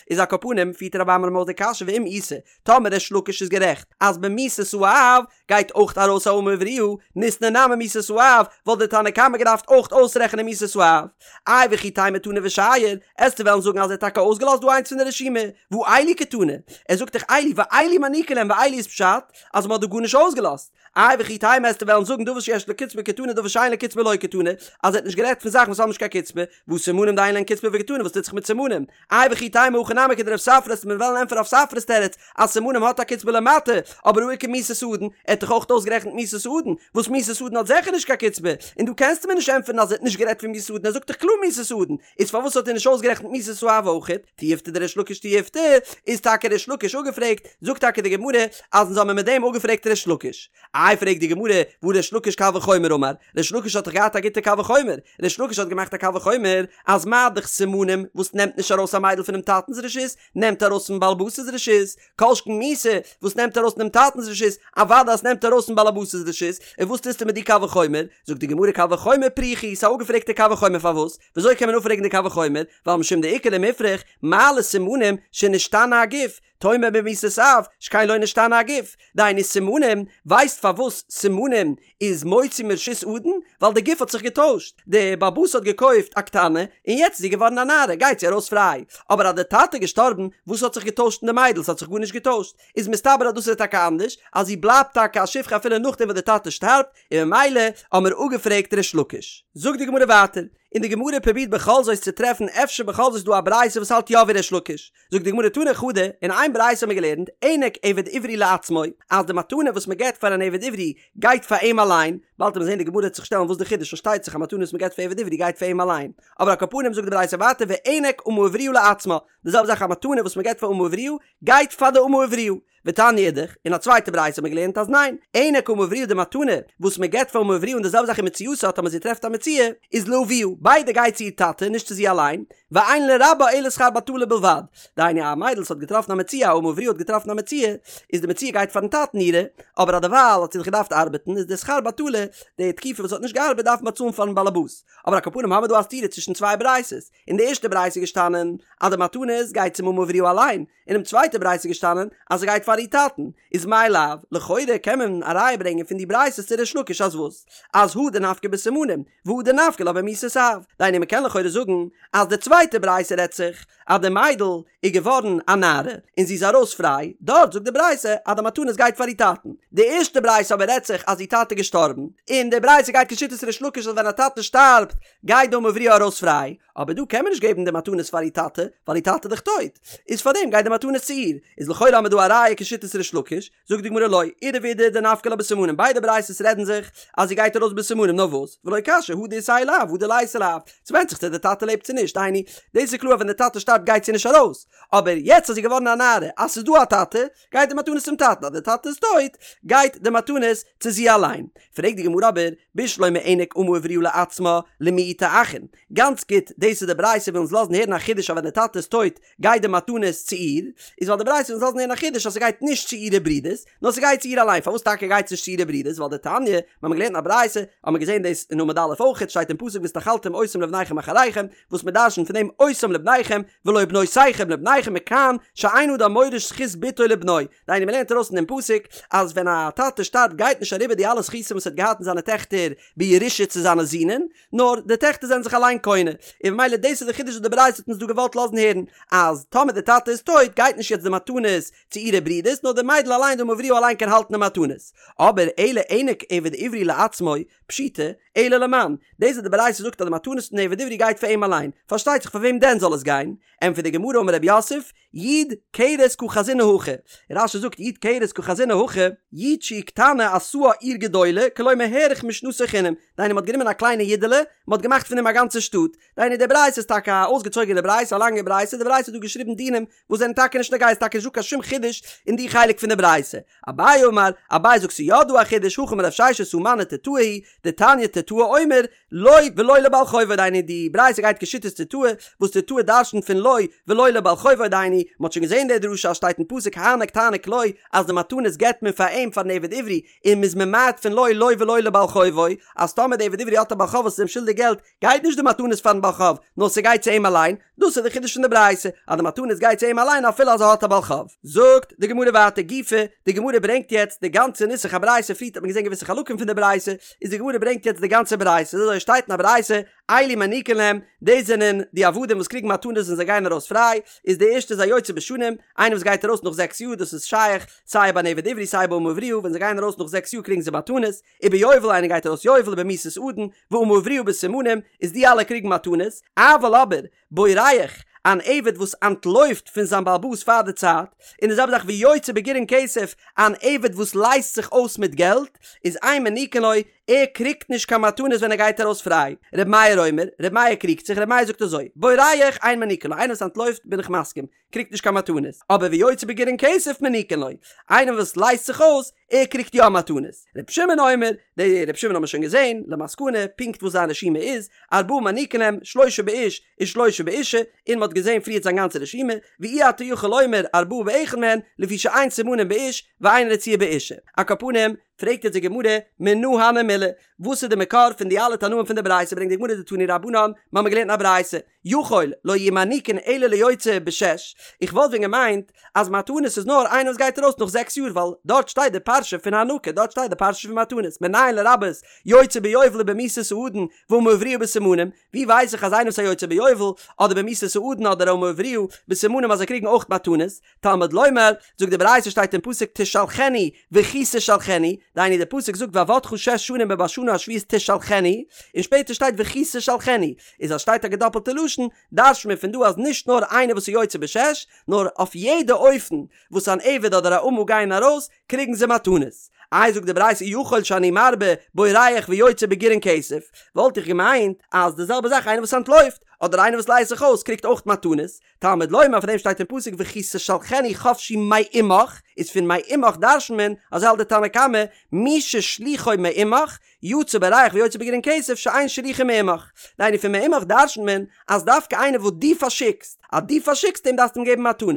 איז על כל פנים פירט רב עמרם אויס די קשיא ואם איתא, טאמער ריש לקיש איז גערעכט אז במיתת האב גייט אויך ארויס א אמה עבריה, ניתני נמי מיתת האב, וואלט דער תנא קמא געדארפט אויך אויסרעכענען מיתת האב. איי וכי תימא תנא ושייר, עסטו וועלן זאגן אז ער האט טאקע אויסגעלאזט דא איינס פון די רשימה, והא אלו קתני, ער זאגט דאך אלו ואלו מעניקין להם ואלו איז פשט אז מ'האט דא גארנישט אויסגעלאזט. איי וכי תימא עסטו וועלן זאגן דבר שיש לו קצבה קתני דבר שאין לו קצבה לא קתני, אז ער האט נישט גערעדט פון זאכן וואס האבן נישט קיין קצבה, והא סימנים דאין להן קצבה וקתני וואס טוט זיך מיט סימנים? איי וכי תימא הכי נמי כדרב ספרא עסט מיר וועלן ענטפערן רב ספרא'ס תירוץ אז סימנים האט א קצבה למטה, אבער הא איכא מיתת אדון, ער האט דאך אויך אויסגערעכנט מיתת אדון, וואס מיתת אדון האט זעכער נישט קיין קצבה, און דא קענסטו מיר נישט ענטפערן אז ער האט נישט גערעדט פון מיתת אדון ער זאגט דאך קלאר מיתת אדון, איז פארוואס האט ער נישט אויסגערעכנט מיתת האב אויכעט? תיובתא דריש לקיש תיובתא, איז טאקע ריש לקיש אפגעפרעגט, זאגט טאקע די גמרא אז אונז האמיר מיט דעם אפגעפרעגט ריש לקיש. איי פרעגט די גמרא, והא ריש לקיש קל וחומר אמר, ריש לקיש האט דאך געהאט א גוטע קל וחומר, ריש לקיש האט געמאכט א קל וחומר אז מה דאך סימנים וואס נעמט נישט ארויס א מיידל פונעם טאטנ'ס רשות, נעמט ארויס פון באלעבאס'ס רשות, כל שכן מיתה וואס נעמט ארויס פונעם טאטנ'ס רשות, אוודאי אז ס'נעמט ארויס פון באלעבאס'ס רשות, און וואס טוסטו מיט די קל וחומר? זאגט די גמרא קל וחומר פריכא הוא, ס'איז א אפגעפרעגטע קל וחומר פארוואס? וויאזוי קען מען אפפרעגן די קל וחומר? ווייל משום דאיכא למיפרך, מה לסימנים שנשתנה הגוף, תאמר במיתת אב, שכן לא נשתנה הגוף. דהיינו סימנים, ווייסט פארוואס סימנים איז מוציא מרשות אדון? ווייל די גוף האט זיך געטוישט, די בעל הבית האט געקויפט א קטנה און יעצט איז זי געווארן א נערה גייט זי ארויס פריי, אבער אז די טאטע איז געשטארבן וואס האט זיך געטוישט אין די מיידל? ס'האט זיך גארנישט געטוישט, איז מסתבר אז דאס איז טאקע אנדערש, אז זי בלייבט טאקע א שפחה אפילו נאכדעם וואס די טאטע שטארבט, און ממילא האמיר אפגעפרעגט ריש לקיש. זאגט די גמרא ווייטער, און די גמרא פרובירט בכל זאת צו טרעפן אפשר בכל זאת איז דא א ברייתא וואס האלט יא ווי ריש לקיש, זאגט די גמרא תנא חדא, אין איין ברייתא האבן מיר געלערנט, הענק עבד עברי לעצמו, אז די מתנה וואס מען געבט פאר אן עבד עברי גייט פאר אים אליין, באלד וועט מען זען די גמרא וועט זיך שטעלן וואס די חידוש פארשטייט זיך א מתנה וואס מען געבט פאר עבד עברי גייט פאר אים אליין, אבער על כל פנים זאגט די ברייתא ווייטער והענק אמה עבריה לעצמה, די זעלבע זאך א מתנה וואס מען געבט פאר אמה עבריה גייט פאר די אמה עבריה, ותניא אידך, אין א צווייטע ברייתא האט מען געלערנט אז ניין, הענק אמה עבריה די מתנה וואס מען געבט פאר אמה עבריה און די זעלבע זאך ומציאתה טאמער זי טרעפט א מציאה איז לאביה, ביידע גייט צו איר טאטע נישט צו זי אליין, ואין לרבה אלא שכר בטלה בלבד, דהיינו א מיידל וואס האט געטראפן א מציאה א אמה עבריה האט געטראפן א מציאה, איז די מציאה גייט פארן טאטן אירע, אבער אז דערווייל האט זי דאך געדארפט ארבעטן איז די שכר בטלה, די תקופה וואס זי האט נישט געארבעט דארף מען באצאלן פארן באלעבאס, אבער על כל פנים האמיר דא א סתירה צווישן צוויי ברייתות, אין די ערשטע ברייתא איז געשטאנען אז די מתנות גייט צום אמה עבריה אליין, אינעם צווייטע ברייתא איז געשטאנען אז ס'גייט פאר איר טאטן, איז מאי לאו, לכאורה קען מען א ראיה ברענגען פון די ברייתות צו ריש לקיש אז וואס? אז הא דנפקא בסימנים, והא דנפקא לה במיתת אב, דהיינו מ'קען לכאורה זאגן אז די צווייטע ברייתא רעדט זיך אז די מיידל איז געווארן א נערה און זי איז ארויס פריי, דארט זאגט די ברייתא אז די מתנות גייט פאר איר טאטן, די ערשטע ברייתא אבער רעדט זיך אז איר טאטע איז געשטארבן, און די ברייתא גייט כשיטת ריש לקיש אז ווען א טאטע שטארבט גייט די אמה עבריה ארויס פריי, אבער דא קען מען נישט געבן די מתנות פאר איר טאטע, ווייל איר טאטע איז דאך טויט, איז פארדעם גייט די מתנות צו איר, איז לכאורה האמיר דא א ראיה כשיטת ריש לקיש, זאגט די גמרא לא, אידי ואידי דנפקא לה בסימנים, ביידע ברייתות רעדן זיך אז זי גייט ארויס בסימנים, נאר וואס, ולא קשיא הא דאיתיה לאב הא דליתיה לאב, ס'ווענדט זיך צו די טאטע לעבט צו נישט, דהיינו, דאס איז קלאר אז ווען די טאטע שטארבט גייט זי נישט ארויס, אבער יעצט אז זי איז געווארן א נערה, אז ס'איז דא א טאטע, גייט די מתנות צום טאטן, אז די טאטע איז טויט, גייט די מתנות צו זי אליין. פרעגט די גמרא אבער, בשלמא הענק אמה עבריה לעצמה, למעוטי אחין. גאנץ גוט, דאס איז די ברייתא וויל אונז לאזן הערן א חידוש אז ווען די טאטע איז טויט גייט די מתנות צו איר, איז ווייל די ברייתא וויל אונז לאזן הערן א חידוש אז ס'גייט נישט צו אירע ברידערס, נאר ס'גייט צו איר אליין, פארוואס טאקע גייט עס נישט צו אירע ברידערס? ווייל דתניא, מיר האבן געלערנט אין א ברייתא, האבן מיר געזען דאס אין עמוד א' אויכעט, שטייט אין פסוק והתנחלתם אותם לבניכם אחריכם, וואס מען דרשנ'ט פון דעם אותם לבניכם, ולא בנותיכם לבניכם מכאן שאין אדם מוריש זכות בתו לבנו, דהיינו מען לערנט ארויס פון דעם פסוק אז ווען א טאטע שטארבט גייט נישט אריבער די אלע זכותים וואס ער האט געהאט אין זיינע טעכטער בירושה צו זיינע זינען, נאר די טעכטער זענען זיך אליין קונה, און ממילא דאס איז די חידוש וואס די ברייתא האט אונז דא געוואלט לאזן הערן, אז טאמער די טאטע איז טויט גייט נישט יעצט די מתנות צו אירע ברידערס נאר די מיידל אליין די אמה עבריה אליין קען האלטן די מתנות. אבער אלא הענק עבד עברי לעצמו, פשיטא, אלא למאן, דאס וואס די ברייתא זאגט אז די מתנות פון עבד עברי גייט פאר אים אליין, פארשטייט זיך פאר וועם דען זאל עס גיין? ענטפערט די גמרא אמר רב יוסף, יו"ד כרס קא חזינא הכא, רש"י זאגט יו"ד כרס קא חזינא הכא, יו"ד שהיא קטנה עשאה עיר גדולה, כלומר האריך משנתו חינם, דהיינו מ'האט גענומען א קליינע יודעלע, מ'האט געמאכט פון דעם א גאנצע שטאט, דהיינו די ברייתא איז טאקע א אויסגעצויגענע ברייתא, א לאנגע ברייתא, די ברייתא האט דא געשריבן דינים וואס זענען טאקע נישט נוגע, איז טאקע נישט דא קיין שום חידוש. אין די חלק פון די ברייתא. אביי אמר, אביי זאגט ס'איז יא דא א חידוש, הכי אמר רב ששת הא מני תוטאי היא, דתניא תוטאי אומר, לו ולא לבעל חובו דהיינו די ברייתא גייט כשיטת תוטאי, וואס תוטאי דרשנ'ט פון לו ולא לבעל חובו דהיינו, מ'האט שוין געזען די דרשה אז שטייט אין פסוק הענק תעניק לו אז די מתנות געבט מען פאר אים פארן עבד עברי, און מ'איז ממעט פון לו לו ולא לבעל חובו, אז טאמער די עבד עברי האט א בעל חוב וואס איז אים שולדיג געלט, גייט נישט די מתנות פארן בעל חוב, נאר ס'גייט צו אים אליין, דאס איז די חידוש פון די ברייתא, אז די מתנות גייט צו אים אליין אפילו אז ער האט א בעל חוב. זאגט די גמרא ווייטער גופא, די גמרא ברענגט יעצט די גאנצע נוסח הברייתא, פריערט האט מען געזען געוויסע חלקים פון די ברייתא, איז די גמרא ברענגט יעצט די גאנצע ברייתא, אזוי שטייט אין א ברייתא, אלו מעניקין להם, דאס זענען די עבדים וואס קריגן מתנות ווען זיי גייען ארויס פריי, איז די ערשטע איז היוצא בשנים, איינער וואס גייט ארויס נאך זעקס יאר, דאס איז שייך סיי ביי אן עבד עברי סיי ביי אמה עבריה, ווען זיי גייען ארויס נאך זעקס יאר קריגן זיי מתנות, וביובל איינער גייט ארויס יובל ובמיתת אדון, ואמה עבריה בסימנים, איז די אלע קריגן מתנות, אבל אבער, בורח, אן עבד וואס אנטלויפט פון זיין בעל הבית פאר די צייט, און די זעלבע זאך ויוצא בגירעון כסף, אן עבד וואס לייזט זיך אויס מיט געלט, איז אין מעניקין לו, ער קריגט נישט קיין מתנות ווען ער גייט ארויס פריי. ר' מאיר אומר, ר' מאיר קריגט זיך, ר' מאיר זאגט אזוי, בורח אין מעניקין לו, איינער וואס אנטלויפט בין איך מסכים, קריגט נישט קיין מתנות, אבער ויוצא בגירעון כסף מעניקין לו, איינער וואס לייזט זיך אויס, ער קריגט יא מתנות. ר' שמעון אומר, די ר' שמעון האבן מיר שוין געזען, למסקנא, פונקט וואס זיין רשימה איז, ארבעה מעניקין להם, שלושה באיש, ושלושה באישה, און מ'האט געזען פריערט זיין גאנצע רשימה, ואי אתה יכול לומר ארבעה באחד מהן, לפי שאין סימנים באיש, ואין רציעה באישה. על כל פנים, פרעגט יעצט די גמרא, מנא הני מילי, וואס איז די מקור פון די אלע תנאים פון די ברייתא, ברענגט די גמרא דתנו רבנן, מ'האמיר געלערנט אין א ברייתא, יכול לא יהו מעניקין אלא ליוצא בשש, איך וואלט ווען געמיינט אז מתנות איז נאר איינער וואס גייט ארויס נאך זעקס יאר ווייל דארט שטייט די פרשה פון הענקה דארט שטייט די פרשה פון מתנות מנין לרבות יוצא ביובל ובמיתת האדון ואמה עבריה בסימנים, ווי ווייס איך אז איינער וואס איז א יוצא ביובל אדער במיתת האדון אדער אמה עבריה בסימנים אז זיי קריגן אויך מתנות, תלמוד לומר, זאגט די ברייתא שטייט אין פסוק תשלחנו וכי תשלחנו, דהיינו די פסוק זאגט ועבדך שש שנים ובשנה השביעית תשלחנו, און שפעטער שטייט וכי תשלחנו, איז אז שטייט א געדאפלטע לשון, דרש'ט מען פון דא אז נישט נאר איינער וואס איז יוצא בשש, נאר אויף יעדע אופן וואס אן עבד אדער א אמה גייען ארויס, קריגן זיי מתנות. איי זאגט די ברייתא יכול שאני מרבה בורח ויוצא בגירעון כסף, וואלט איך געמיינט אז די זעלבע זאך איינער וואס אנטלויפט, אדער איינער וואס לייזט זיך אויס קריגט אויך מתנות, תלמוד לומר פאר דעם שטייט אין פסוק וכי תשלחנו חפשי מעמך, איז פון מעמך דרש'נט מען, אזוי האלט די תנא קמא, מי ששלוחו מעמך, יצא בורח ויוצא בגירעון כסף שאין שלוחו מעמך. דהיינו פון מעמך דרש'נט מען אז דווקא איינער וואס דו פארשיקסט, אז דו פארשיקסט אים דארפסטו אים געבן מתנות,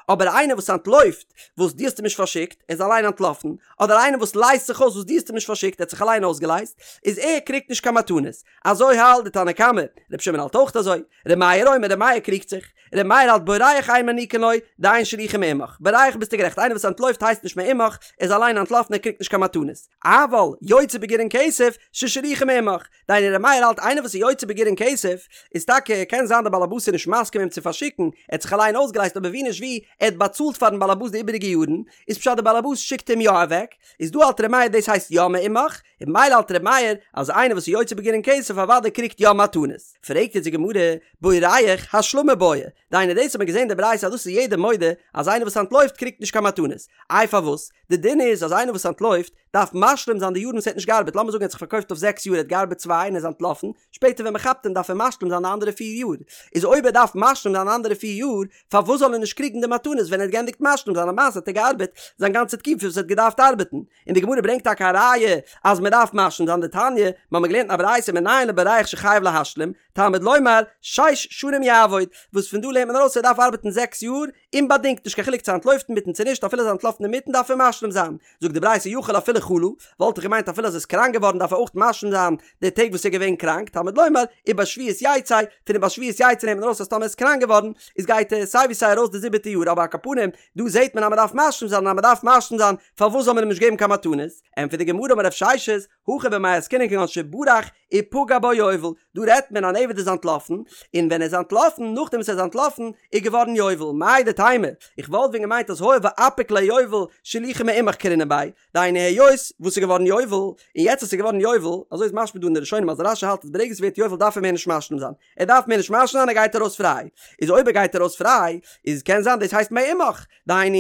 אבער איינער וואס אנטלויפט וואס דו האסט אים נישט פארשיקט, ער איז אליין אנטלאפן, אדער איינער וואס לייזט זיך אויס וואס דו האסט אים נישט פארשיקט, ער האט זיך אליין אויסגעלייזט, איז ער קריגט נישט קיין מתנות. אזוי האלט די תנא קמא, ר' שמעון האלט אויך אזוי. ר' מאיר אומר, ר' מאיר קריגט זיך. ר' מאיר האלט בורח אין מעניקין לו, דאין שלוחו מעמך. בורח ביסטו גערעכט, איינער וואס אנטלויפט הייסט נישט מעמך, ער איז אליין אנטלאפן ער קריגט נישט קיין מתנות. אבל יוצא בגירעון כסף, ששלוחו מעמך. דהיינו ר' מאיר האלט איינער וואס איז יוצא בגירעון כסף, איז טאקע קען זיין דער בעל הבית איז נישט מסכים אים צו פארשיקן, ער האט זיך אליין אויסגעלייזט אבער ווי נישט ווי, ער האט באצאלט פארן בעל הבית די איבעריגע יארן, איז פשט דער בעל הבית שיקט אים יא אוועק, איז דא האלט ר' מאיר דאס הייסט יא מעמך, און ממילא האלט ר' מאיר אז איינער וואס איז יוצא בגירעון כסף אוודאי קריגט יא מתנות. פרעגט יעצט די גמרא, בורח השלמה בעי, דהיינו דאס האט מען געזען די ברייתא אז דאס איז יעדער מודה אז איינער וואס אנטלויפט קריגט נישט קיין מתנות, איי פארוואס? די דין איז אז איינער וואס אנטלויפט דארף משלים זיין די יארן וואס ער האט נישט געארבעט, לאמיר זאגן ער האט זיך פארקויפט אויף זעקס יאר ער האט געארבעט צוויי און ער איז אנטלאפן, שפעטער ווען מען כאפט אים דארף ער משלים זיין די אנדערע פיר יאר, איז אויב ער דארף משלים זיין די אנדערע פיר יאר, פארוואס זאל ער נישט קריגן די מתנות ווען ער האט געענדיגט משלים זיין למעשה האט ער געארבעט זיין גאנצע תקופה וואס ער האט געדארפט ארבעטן, און די גמרא ברענגט טאקע א ראיה אז מען דארף משלים זיין דתניא, מיר האבן געלערנט אין א ברייתא מנין לבורח שחייב להשלים, תלמוד לומר, שש שנים יעבוד, וואס פון דא לערנט מען ארויס ער דארף ארבעטן זעקס יאר, אומבאדינגט, נישט קיין חילוק צו אנטלויפט אינמיטן צו נישט, אפילו אז ער אנטלאפן אינמיטן דארף ער משלים זיין. זאגט די ברייתא יכול אפילו חלה, וואלט איך געמיינט אפילו אז ער איז קראנק געווארן דארף ער אויך משלים זיין די טעג וואס ער איז געווען קראנק, תלמוד לומר, ובשביעית יצא, פון ובשביעית יצא נעמט מען ארויס אז טאמער ער איז קראנק געווארן, איז גייט ער סיי ווי סיי ארויס די זיבעטע יאר, אבער על כל פנים, דא זעט מען אז מען דארף משלים זיין און אז מען דארף משלים זיין, פארוואס זאל מען אים נישט געבן קיין מתנות? ענטפערט די גמרא אמר רב ששת, הכא במאי עסקינן כגון שברח ופגע בו יובל, דא רעדט מען אן עבד איז אנטלאפן, און ווען ער איז אנטלאפן, נאכדעם וואס ער איז אנטלאפן, איז געווארן יובל, מהו דתימא, איך וואלט ווען געמיינט אז הואיל ואפיק ליה יובל, שלוחו מעמך קרינן ביה, דהיינו היות וואס איז געווארן יובל, און יעצט אז ס'איז געווארן יובל, אזוי איז משמע דא אין די ראשונים אז רש"י האלט אז ברגע ס'ווערט יובל דארף ער מער נישט משלים זיין, ער דארף מער נישט משלים זיין ער גייט ארויס פריי, איז אויב ער גייט ארויס פריי, איז קען זיין דאס הייסט מעמך, דהיינו.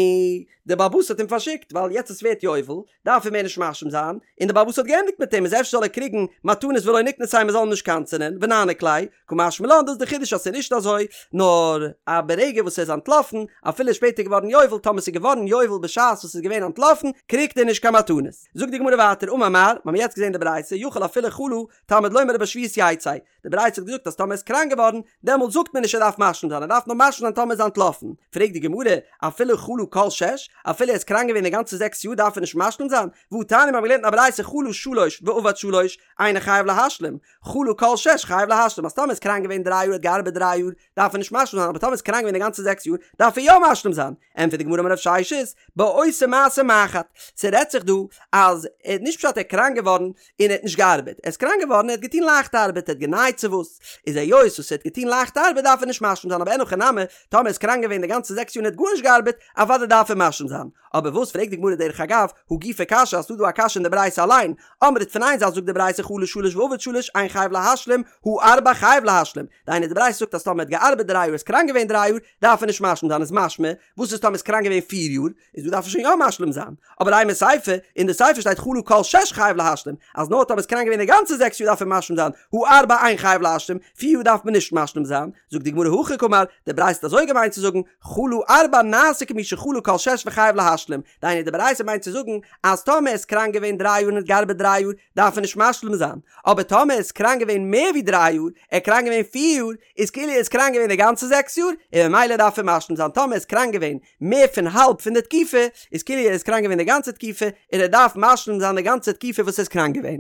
די בעל הבית האט אים פארשיקט ווייל יעצט עס ווערט יובל דארף ער מער נישט משלים זיין, און די בעל הבית האט געענדיגט מיט אים איז אפשר זאל ער קריגן מתנות ולא ניקנסיה מען זאל אים נישט קנס'ענען ונעניק ליה, קא משמע לן דאס איז די חידוש אז ס'איז נישט אזוי, נאר א ברגע וואס ער איז אנטלאפן, אפילו איז שפעטער געווארן יובל, טאמער ס'איז געווארן יובל בשעת וואס ס'איז געווען אנטלאפן, קריגט ער נישט קיין מתנות. זאגט די גמרא ווייטער, אמר מר, מ'האמיר יעצט געזען די ברייתא, יכול אפילו חלה, תלמוד לומר ובשביעית יצא, די ברייתא האט געזאגט אז טאמער ער איז קראנק געווארן, דעמאלט זאגט מען נישט ער דארף משלים זיין, ער דארף נאר משלים זיין טאמער איז אנטלאפן. פרעגט די גמרא, אפילו חלה כל שש, אפילו ער איז קראנק געווען די גאנצע זעקס יאר דארף ער נישט משלים זיין? והתניא מ'האמיר געלערנט אין א ברייתא חלה שלש ועבד שלש, אינו חייב להשלים, חלה כל שש חייב להשלים, אז טאמער איז קראנק געווען דריי יאר האט געארבעט דריי יאר, דארף ער נישט משלים זיין, אבער טאמער איז קראנק געווען די גאנצע זעקס יאר, דארף ער יא משלים זיין. ענטפערט די גמרא אמר רב ששת, בעושה מעשה מחט, ס'רעדט זיך דא אז ער האט נישט פשט ער איז קראנק געווארן און ער האט נישט געארבעט, ער איז קראנק געווארן ער האט געטון לייכטע ארבעט, ער האט גענייט צו וואס, איז היות וואס ער האט געטון לייכטע ארבעט דארף ער נישט משלים זיין, אבער אין הכי נמי, טאמער ער איז קראנק געווען די גאנצע זעקס יאר און ער האט גארנישט געארבעט, אוודאי דארף ער משלים זיין. אבער וואס פרעגט די גמרא דרך אגב, הא גופא קשיא אז ס'דא דא א קשיא אין די ברייתא אליין, אמרת פון איין זייט זאגט די ברייתא חלה שלש ועבד שלש אין חייב להשלים, הא ארבע חייב להשלים, דהיינו די ברייתא זאגט אז טאמער ער האט געארבעט דריי יאר איז קראנק געווען דריי יאר דארף ער נישט משלים זיין איז משמע וואס איז טאמער איז קראנק געווען פיר יאר איז דא דארף ער שוין יא משלים זיין אבער אימא סיפא אין די סיפא שטייט חלה כל שש חייב להשלים אז נאר טאמער איז קראנק געווען די גאנצע זעקס יאר דארף ער משלים זיין הא ארבע אין חייב להשלים פיר יאר דארף מען נישט משלים זיין זאגט די גמרא הכי קאמר די ברייתא האט אזוי געמיינט צו זאגן חלה ארבע נעשה כמי שחלה כל שש וחייב להשלים דהיינו די ברייתא מיינט צו זאגן אז טאמער איז קראנק געווען דריי יאר און האט געארבעט דריי יאר דארף ער נישט משלים זיין, אבער טאמער איז קראנק געווען מער ווי דריי יאר, ער איז קראנק געווען פיר יאר, איז כאילו ער איז קראנק געווען די גאנצע זעקס יאר, און ממילא דארף ער משלים זיין, טאמער איז קראנק געווען מער פון האלב פון די תקופה, איז כאילו ער איז קראנק געווען די גאנצע תקופה, און ער דארף משלים זיין די גאנצע תקופה וואס ער איז קראנק געווען.